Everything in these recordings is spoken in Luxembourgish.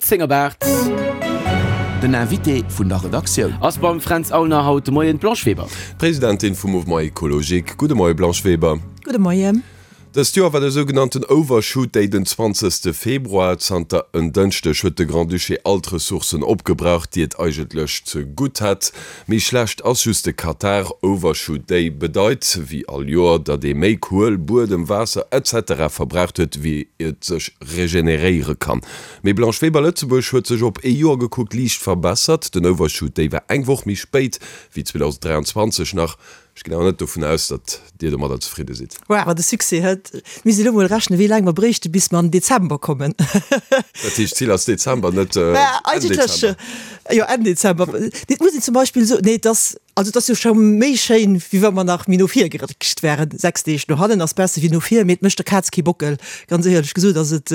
10 op 8. Den Invité vun der Redaktioun. Ass beim Fränz Aulner haut de Moien d'Blanche Weber. D'Presidentin vum Mouvement Ecologique. Gudde Moie Blanche Weber. Gudde Moien. Dëst Joer war de sougenannten Overshoot Day den 20. Februar. Zanter en Dënschdeg huet de Grand-Duché all d'Ressourcen opgebraucht, déi et eigentlech ze gutt hätt. Méi schlecht ass just de Katar. Overshoot Day bedeit, wéi all Joer, datt ee méi Kuel, Buedem, Waasser etc. Verbraucht huet, wéi et sech regeneréiere kann. Mee Blanche Weber, Lëtzebuerg huet sech op ee Joer gekuckt liicht verbessert. Den Overshoot Day war eng Woch méi spéit wéi 2023 nach. Ech ginn awer net dovun aus, datt Dir domadder zefridde sidd. Awer de Succès huet. Mir misst elo mol rechnen, wéi laang mer bréichte bis mer an den Dezember kommen. Dat heescht, d'Zil ass Dezember, net Enn Dezember? Jo, Enn Dezember. Et muss een zum Beispill soen, nee, et ass, also et ass jo scho méi schéin, wéi wa mer nach méi no vir geréckcht wären. 6 Deeg no hannen ass besser wéi no vir, mee et mécht der Kaz kee Bockel. Ganz éierlech gesot ass et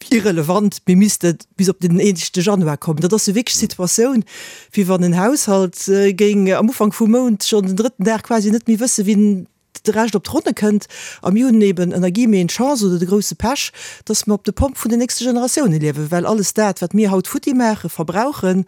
irrelevant, mir misste bis op den éischte Januar kommen. Dat ass jo wierklech d'Situatioun, wéi wann en Haushalt géing am Ufank vum Mount schonn den drëtten Dag quasi net méi wëssen, wien de Rescht op d'Ronne kënnt. A mir hunn eben ënner guillemeten d'Chance oder de grousse Pech, dass mer op de Pomp vun den nächste Generatioune liewen, well alles dat, wat mir haut futti maachen, verbrauchen,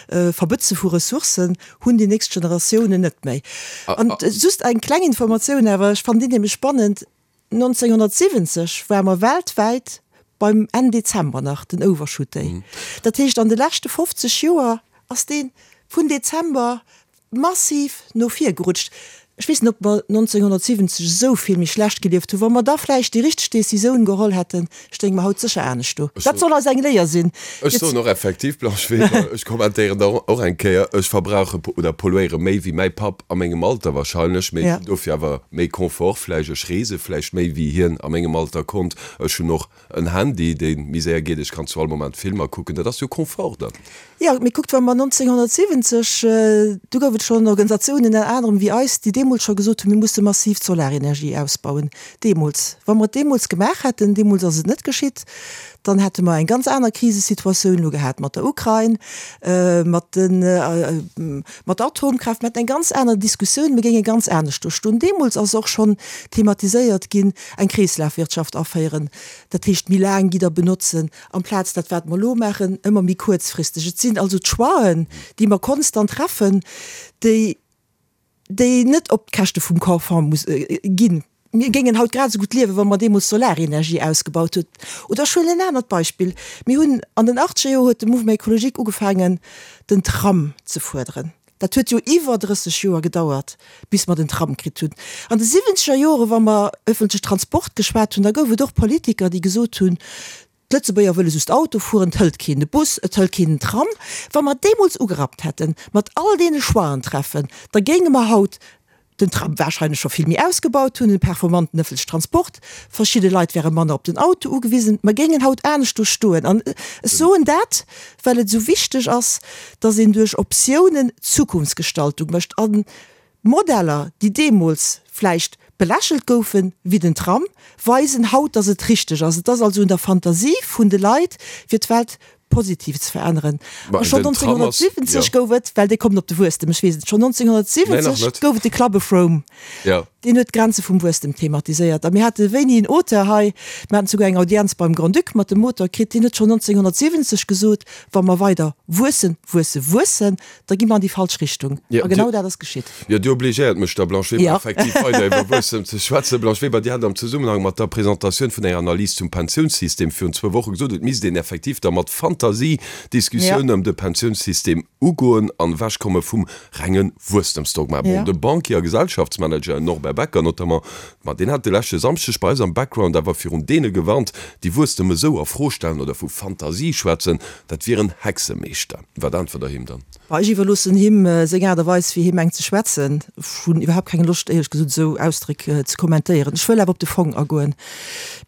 verbëtze vu Ressourcen, hunn déi nächst Generatiounen net méi. An just eng kleng Informatioun awer, ech fannen déi nämlech spannend, 1970 ware mer weltwäit beim Enn Dezember nach den Overshoot Day. Dat heescht, an de leschte 50 Joer ass dee vun Dezember massiv no vir gerutscht. Ech weess net, ob mer 1970 esou vill méi schlecht gelieft hunn. Wa mer da vläicht déi richteg Decisioun geholl hätten, stéinge mer haut sécher anescht do. Dat soll eis eng Léier sinn. Ech soen och effektiv, Blanche Weber, ech kommentéieren da och eng Kéier, ech verbrauche oder polluéiere méi wéi mäi Papp a mengem Alter wahrscheinlech, mee ech hunn dofir awer méi Confort vläicht, ech reese vläicht méi wéi hien a mengem Alter konnt, ech hunn och en Handy, dee méi séier geet, ech kann zu all Moment Filmer kucken, dat ass jo Confort dann. Jo, mee kuckt, wa mer 1970, du gouf et schonn Organisatiounen ënner anerem wéi eis, déi deemools scho gesot hunn, mir musse massiv d'Solarenergie ausbauen. Deemools, wa mer et deemools gemaach hätten, deemools ass et net geschitt, dann hätte mer eng ganz aner Krisesituatioun elo gehat mat der Ukrain, mat den, mat der Atomkraaft, mir hätten eng ganz aner Diskussioun, mir géinge ganz anescht do stoen. Deemools ass och schonn thematiséiert ginn, eng Kreeslafwirtschaft aféieren, dat heescht méi laang Gidder benotzen, amplaz dat wat mer elo maachen, ëmmer méi kuerzfristeg. Et sinn also d'Choixen, déi mer konstant treffen, déi déi net op d'Käschte vum Confort muss ginn. Mir géingen haut grad esou gutt liewen, wa mer deemools d'Solarenergie ausgebaut huet. Oder ech huelen en anert Beispill, Mir hunn an den achtzeger Joer huet de Mouvement écologique ugefaangen, den Tram ze fuerderen. Dat huet jo iwwer 30 Joer gedauert, bis mer den Tram kritt hunn. An de siwwenzeger Jore wa mer öffentliche Transport geschwat hunn, da gouf et och Politiker, déi gesot hunn, D'Lëtzebuerger wëlle just Auto fueren, et hëlt keen de Bus, et hëlt keen den Tram. Wa mer deemools ugerappt hätten, mat all deene Choixen treffen, da géinge mer haut den Tram warscheinlech scho vill méi ausgebaut hunn, en performanten ëffentlechen Transport, verschidde Leit wäre manner op den Auto ugewisen, mer géingen haut anescht do stoen. An ech soen dat, well et esou wichteg ass, dass een duerch Optiounen Zukunftsgestaltung mécht. A Modeller, déi deemools vläicht belächelt goufen, wéi den Tram, weisen haut, dass et richteg ass. Et ass also un der Fantasie vun de Leit, fir d'Welt positiv ze veränneren. A schonn 1970 gouf et, well Dir kommt op de Wuesstem, ech weess et, schonn 1970 gouf et de Club of Rome, deen huet d'Grenze vum Wuesstem thematiséiert. A mir hate wéini en Auteur hei, mir haten souguer eng Audienz beim Grand-Duc mat dem Auteur kritt, deen huet schonn 1970 gesot, Wa mer weider wuessen, wuessen, wuessen, da gi mer an déi falsch Richtung. A genau dat ass geschitt. Jo, Dir obligéiert mech da, Blanche Weber, effektiv weider iwwer Wuesstem ze schwätzen. Blanche Weber, Dir hat am Zesummenhang mat der Presentatioun vun enger Analys zum Pensiounssystem virun zwou Woche gesot, et misst een effektiv da mat Fantasie d'Diskussioun ëm de Pensiounssystem ugoen an ewechkomme vum renge Wuesstemsdogma. Bon, de Banquier a Gesellschaftsmanager Norbert Becker notamment, ma deen hat de leschte Samschdeg bei eis am Background awer virun deene gewarnt, déi Wuesstem esou a Fro stellen oder vu Fantasie schwätzen, dat wieren Hexemeeschter. Wat äntwert Der him dann? Bah, ech iwwerloossen him seng Aart a Weis, wéi hie mengt ze schwätzen. Ech hunn iwwerhaapt keng Loscht, éierlech gesot, esou Ausdréck ze kommentéieren. Ech wëll awer op de Fong agoen.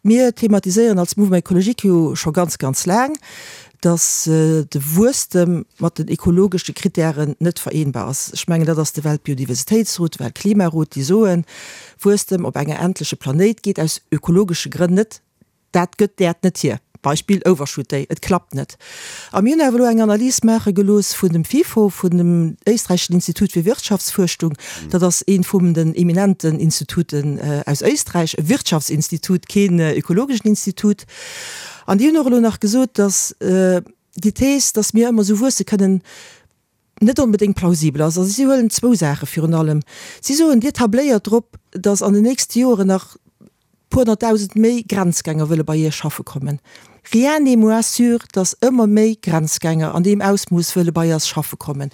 Mir thematiséieren als Mouvement écologique jo scho ganz, ganz laang, dass de Wuesstem mat den ekologesche Kritären net vereenbar ass. Ech mengen, dat ass de Weltbiodiversitéitsrot, de Weltklimarot, déi soen, Wuesstem op enger endleche Planéit geet aus ökologesche Grënn net. Dat gëtt d'Äerd net hier. Beispill Overshoot Day, et klappt net. A mir hunn awer elo eng Analys maache gelooss vun dem FIFO, vun dem éisträicheschen Institut fir Wirtschaftsfuerschtung. Dat ass eent vum den eminenten Instituten aus Éisträich, e Wirtschaftsinstitut, keen ökologeschen Institut. An déi hunn och elo nach gesot, datt déi Thees, datt mir ëmmer esou wuesse kënnen, net onbedéngt plausibel ass. Also si huelen zwou Saache virun allem. Si soen, Dir tabléiert drop, datt an den nächste Joren nach puer honnertdausend méi Grenzgänger wëlle bei Iech schaffe kommen. Rien n'est moins sûr, datt ëmmer méi Grenzgänger an deem Ausmooss wëlle bei eis schaffe kommen,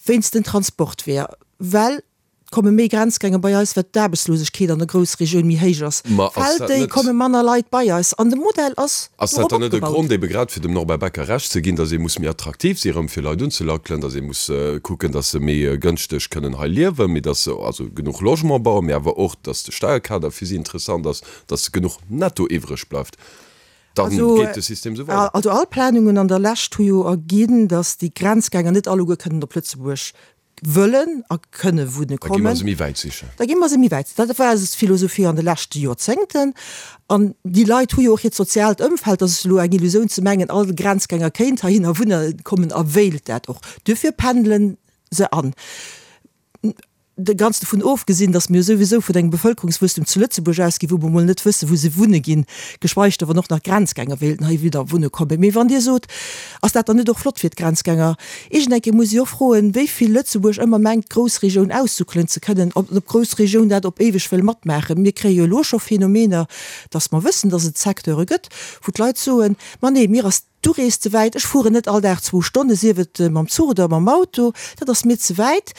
wéinst den Transportweeër, well komme méi Grenzgänger bei eis, well d'Aarbechtslosegkeet an der Groussregioun méi héich ass. Ma ass Fält dat déi, net. komme manner Leit bei eis. An de Modell ass Ass dat dorop dann net e opgebaut. Grond, ebe grad fir dem Norbert Becker Recht ze ginn, datt ee muss méi attraktiv si erëm fir Leit unzelackelen, datt ee muss kucken, datt se méi gënschteg kënnen hei liewen, mee datt se also genuch Logement bauen, mee awer och, datt de Steierkader fir si interessant ass, datt genuch Netto iwwreg bleift? Dann Also, geet de System esou weider. also all Planungen an der Lescht hu jo erginn, datt déi Grenzgänger net alleguer kënnen op Lëtzebuerg wëllen a kënne wunne Da gi mer kommen. se méi wäit sichen. Da gi mer se méi wäit. Dat war eis Philosophie an de leschte Joerzéngten. An déi Leit hu jo och hiert soziaalt Ëmfeld. Dat ass elo eng Illusioun ze mengen, all Grenzgänger kéint heihinner wunne kommen a wéilt dat och. Duerfir pendele se an. De ganz dovun ofgesinn, datt mir jo souwisou vun engem Bevëlkerungswuesstum zu Lëtzebuerg ausginn, wou mer mol net wëssen, wou se wunne ginn, geschweig da wann och nach Grenzgänger wéilten heiwidder wunne kommen. Mee wann Dir sot, Ass dat dann net och flott fir d'Grenzgänger? Iergend eng Kéier muss ee och froen, wéi vill Lëtzebuerg ëmmer mengt, d'Groussregioun aussuckelen ze kënnen, ob d'Groussregioun dat op éiweg wëll matmaachen. Mir kréie jo elo scho Phänomener, dass mer wëssen, dass et Secteure gëtt, wou d'Leit soen, Ma nee, mir ass d'Urees ze wäit, ech fueren net all Dag zwou Stonnen, sief et mam Zuch oder mam Auto, dat ass mir ze wäit.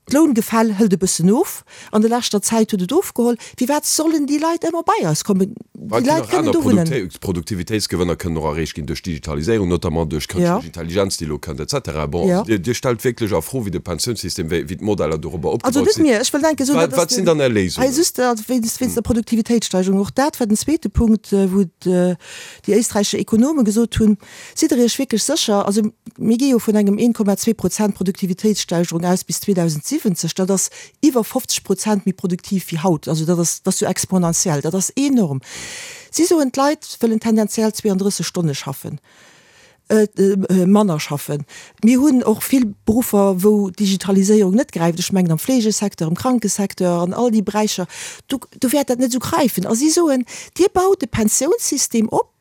D'Loungefäll hëlt e bëssen of, an der leschter Zäit huet et ofgeholl. Firwat sollen déi Leit ëmmer bei eis kommen? Déi Leit kënnen do wunnen. Produktivitéitsgewënner kënnen och erreecht ginn duerch Digitaliséierung, notamment duerch kënschtlech Intelligenz, déi elo kënnt, et cetera. Bon, also Dir stellt wierklech a Fro, wéi de Pensiounssystem, wéi d'Modeller dorobber opgebaut sinn. Also net mir, ech wëll denken, soen, Wat sinn dann Är Léisungen? Hei just wéinst der Produktivitéitssteigerung. Och dat war den zweete Punkt, wou déi éisträichesch Ekonome gesot hunn, Sidd Der Iech wierklech sécher? Also mir gi jo vun engem 1,2 Prozent Produktivitéitssteigerung aus bis 2070. Dat ass iwwer 50 Prozent méi produktiv wéi haut. Also dat ass, dat ass jo exponentiell, dat ass enorm. Si soen, d'Leit wëllen tendenziell 32 Stonne schaffen, manner schaffen. Mir hunn och vill Beruffer, wou d'Digitaliséierung net gräift. Ech mengen am Fleegesecteur, am Krankesecteur, an all déi Beräicher, do, do wäert dat net esou gräifen. A si soen, Dir baut e Pensiounssystem op,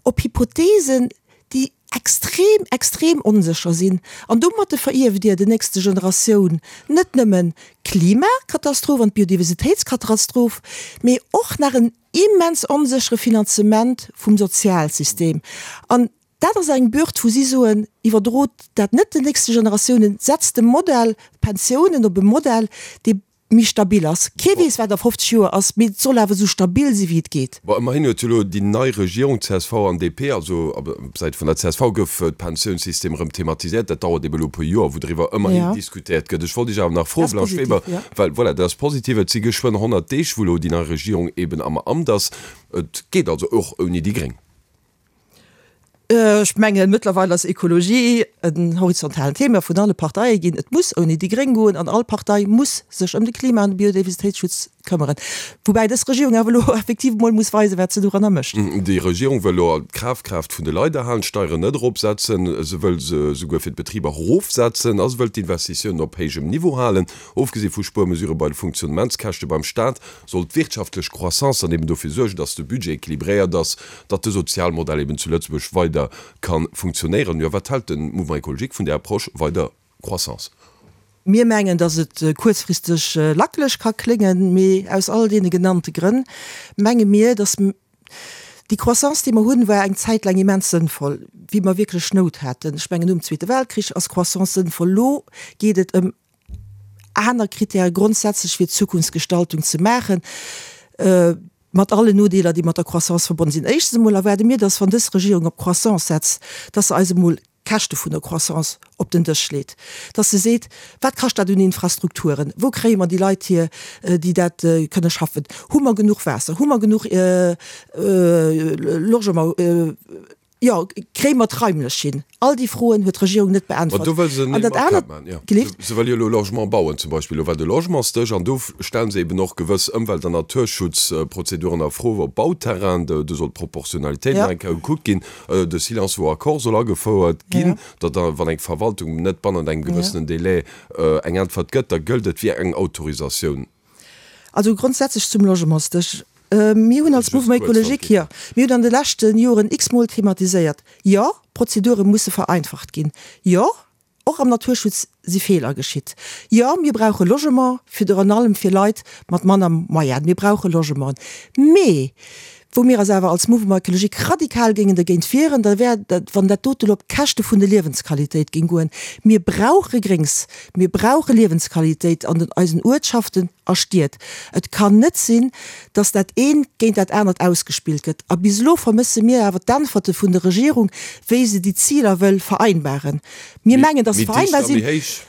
op Hypothesen, déi extrem, extrem onsécher sinn. An domatte verierft Dir den nächste Generatioun net nëmmen d'Klimakatastroph an d'Biodiversitéitskatastroph, mee och nach en immens onséchere Finanzement vum Sozialsystem. An dat ass eng Bürd, wou si soen, Iwwerdrot dat net den nächste Generatiounen, setzt de Modell Pensiounen op e Modell, dee méi stabil ass. Kee weess, wat a 50 Joer ass, mee et soll awer esou stabil si wéi et geet. Bon, ëmmerhin huet jo elo déi nei Regierung, csv an DP, also op Säit vun der csv gouf d'Pensiounssystem erëm thematiséiert. Dat dauert ebe elo e puer Joer, wou driwwer ëmmerhin diskutéiert gëtt. Ech wollt Iech awer nach froen, Blanche Weber, well voilà, dat ass positiv, et si geschwënn 100 Deeg, wou elo déi nei Regierung eben am Amt ass. Et geet also och ouni déi Gréng. Ech mengen, mëttlerweil ass Ekologie en horizontalen Thema vun alle Parteie ginn. Et muss ouni déi Gréng goen an all Partei muss sech ëm de Klima an de Biodiversitéitsschutz këmmeren. Woubäi dës Regierung awer elo effektiv emol muss weisen, wat se doranner mécht. Déi Regierung wëll elo d'Kafkraaft vun de Leit erhalen, d'Steieren net eropsetzen, se wëll se souguer fir d'Betriber erofsetzen a se wëll d'Investitiounen op héijem Niveau halen. Ofgesi vu Spuermesurë bei de Funktionnementskäschte beim Staat, soll d'wirtschaftlech Croissance dann eben dofir suergen, dass de Budget équilibréiert ass, datt de Sozialmodell eben zu Lëtzebuerg weider ka funktionéieren. Jo, wat hält de Mouvement Écologique vun där Approche, weider Croissance? Mir mengen, dass et kuerzfristeg lackeleg ka kléngen, mee aus all deene genannte Grënn menge mir, dass déi Croissance, déi mer hunn, war eng Zäit laang immens sënnvoll, wéi mer wierklech Nout haten. Ech mengen, nom Zweete Weltkrich ass Croissance sënnvoll. Elo geet et ëm aner Kritäre grondsätzlech fir d'Zukunftsgestaltung ze maachen, mat allen Nodeeler, déi mat der Croissance verbonnen sinn. Éischtens emol erwaarde mir, dass, wann dës Regierung op Croissance setzt, dass se eis emol d'Käschte vun der Croissance op den Dësch leet, dass se seet, Wat kascht dat un Infrastrukturen? Wou kréie mer déi Leit hier, déi dat kënne schaffen? Hu mer genuch Waasser? Hu mer genuch Logement? Jo, kréie mer d'raimlech hin? All déi Froen huet d'Regierung net Ma beäntwert. do wëll se An net dat anert, mat maachen, jo. gelift? Se wëll jo elo Logement bauen zum Beispill. Elo war de Logementsdësch an do stellen se eben och gewëss Ëmwelt an Naturschutzprozeduren a Fro op Bauterrain. Do soll d'Proportionalitéit Ja. nach eng Kéier gekuckt ginn. De Silence vaut accord soll agefouert Ja. ginn, datt da, wann eng Verwaltung net bannent engem Ja. gewëssenen Délai eng Äntwert gëtt, da gëllt et wéi eng Autorisatioun. Also grondsätzlech zum Logementsdësch. Mir hunn als Just Mouvement kuerz, wann écologique, et geet. jo, mir hunn an de leschte Joren x-mol thematiséiert, jo, d'Prozedure musse vereinfacht ginn, jo, och am Naturschutz si Feeler geschitt, jo, mir brauche Logement, virun allem fir Leit mat manner Moyen, mir brauche Logementen. Mee wou mir eis awer als Mouvement écologique radikal géingen dergéint wieren, da wär dat, wann dat dote lo op d'Käschte vun der Liewensqualitéit géing goen. Mir brauche Gréngs, mir brauche Liewensqualitéit an den eisen Uertschaften a Stied. Et kann net sinn, dass dat eent géint dat anert ausgespillt gëtt. A bis elo vermësse mir awer d'Äntwerte vun der Regierung, wéi se déi Ziler wëll vereinbaren. Mir mengen, dass se Méi dicht vereinbar a méi sinn. héich.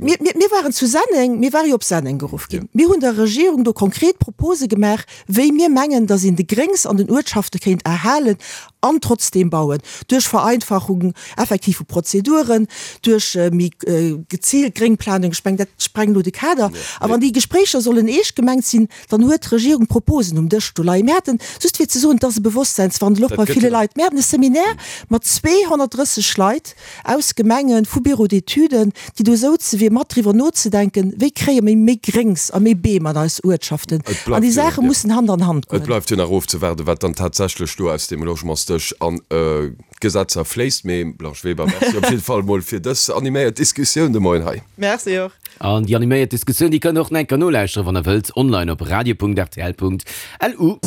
Mir, mir, mir waren zu Senneng, mir ware jo op Senneng geruff ginn. Mir hunn der Regierung do konkret Propose gemaach, wéi mir mengen, dass een de Gréngs an den Uertschafte kéint erhalen an trotzdeem bauen, duerch Vereinfachung effektiv vu Prozeduren, duerch méi geziilt Gréngplanung. Ech mengen, dat sprengt elo de Kader. A wann déi Gespréicher sollen eescht gemengt sinn, dann huet d'Regierung Proposen um Dësch do leien. Mir haten, just fir ze soen, et ass e Bewosstseinswandel och bei ville Leit, mir haten e Seminaire mat 230 Leit aus Gemengen, vu Bureaux d'études, déi do souze fir mat driwwer nozedenken, wéi kréie mir méi Gréngs a méi Beem an eis Uertschaften. An déi Saache mussen Hand an Hand Et goen. bleift jo nach ofzewaarden, wat dann tatsächlech do aus deem Logementsdësch an d'Gesetzer fléisst. Mee Blanche Weber, Merci op jidde Fall emol fir dës animéiert Diskussioun de Moien hei. Merci och. An déi animéiert Diskussioun, déi kënnt der och nach eng Kéier nolauschteren, wann der wëllt, online op radio.rtl.lu.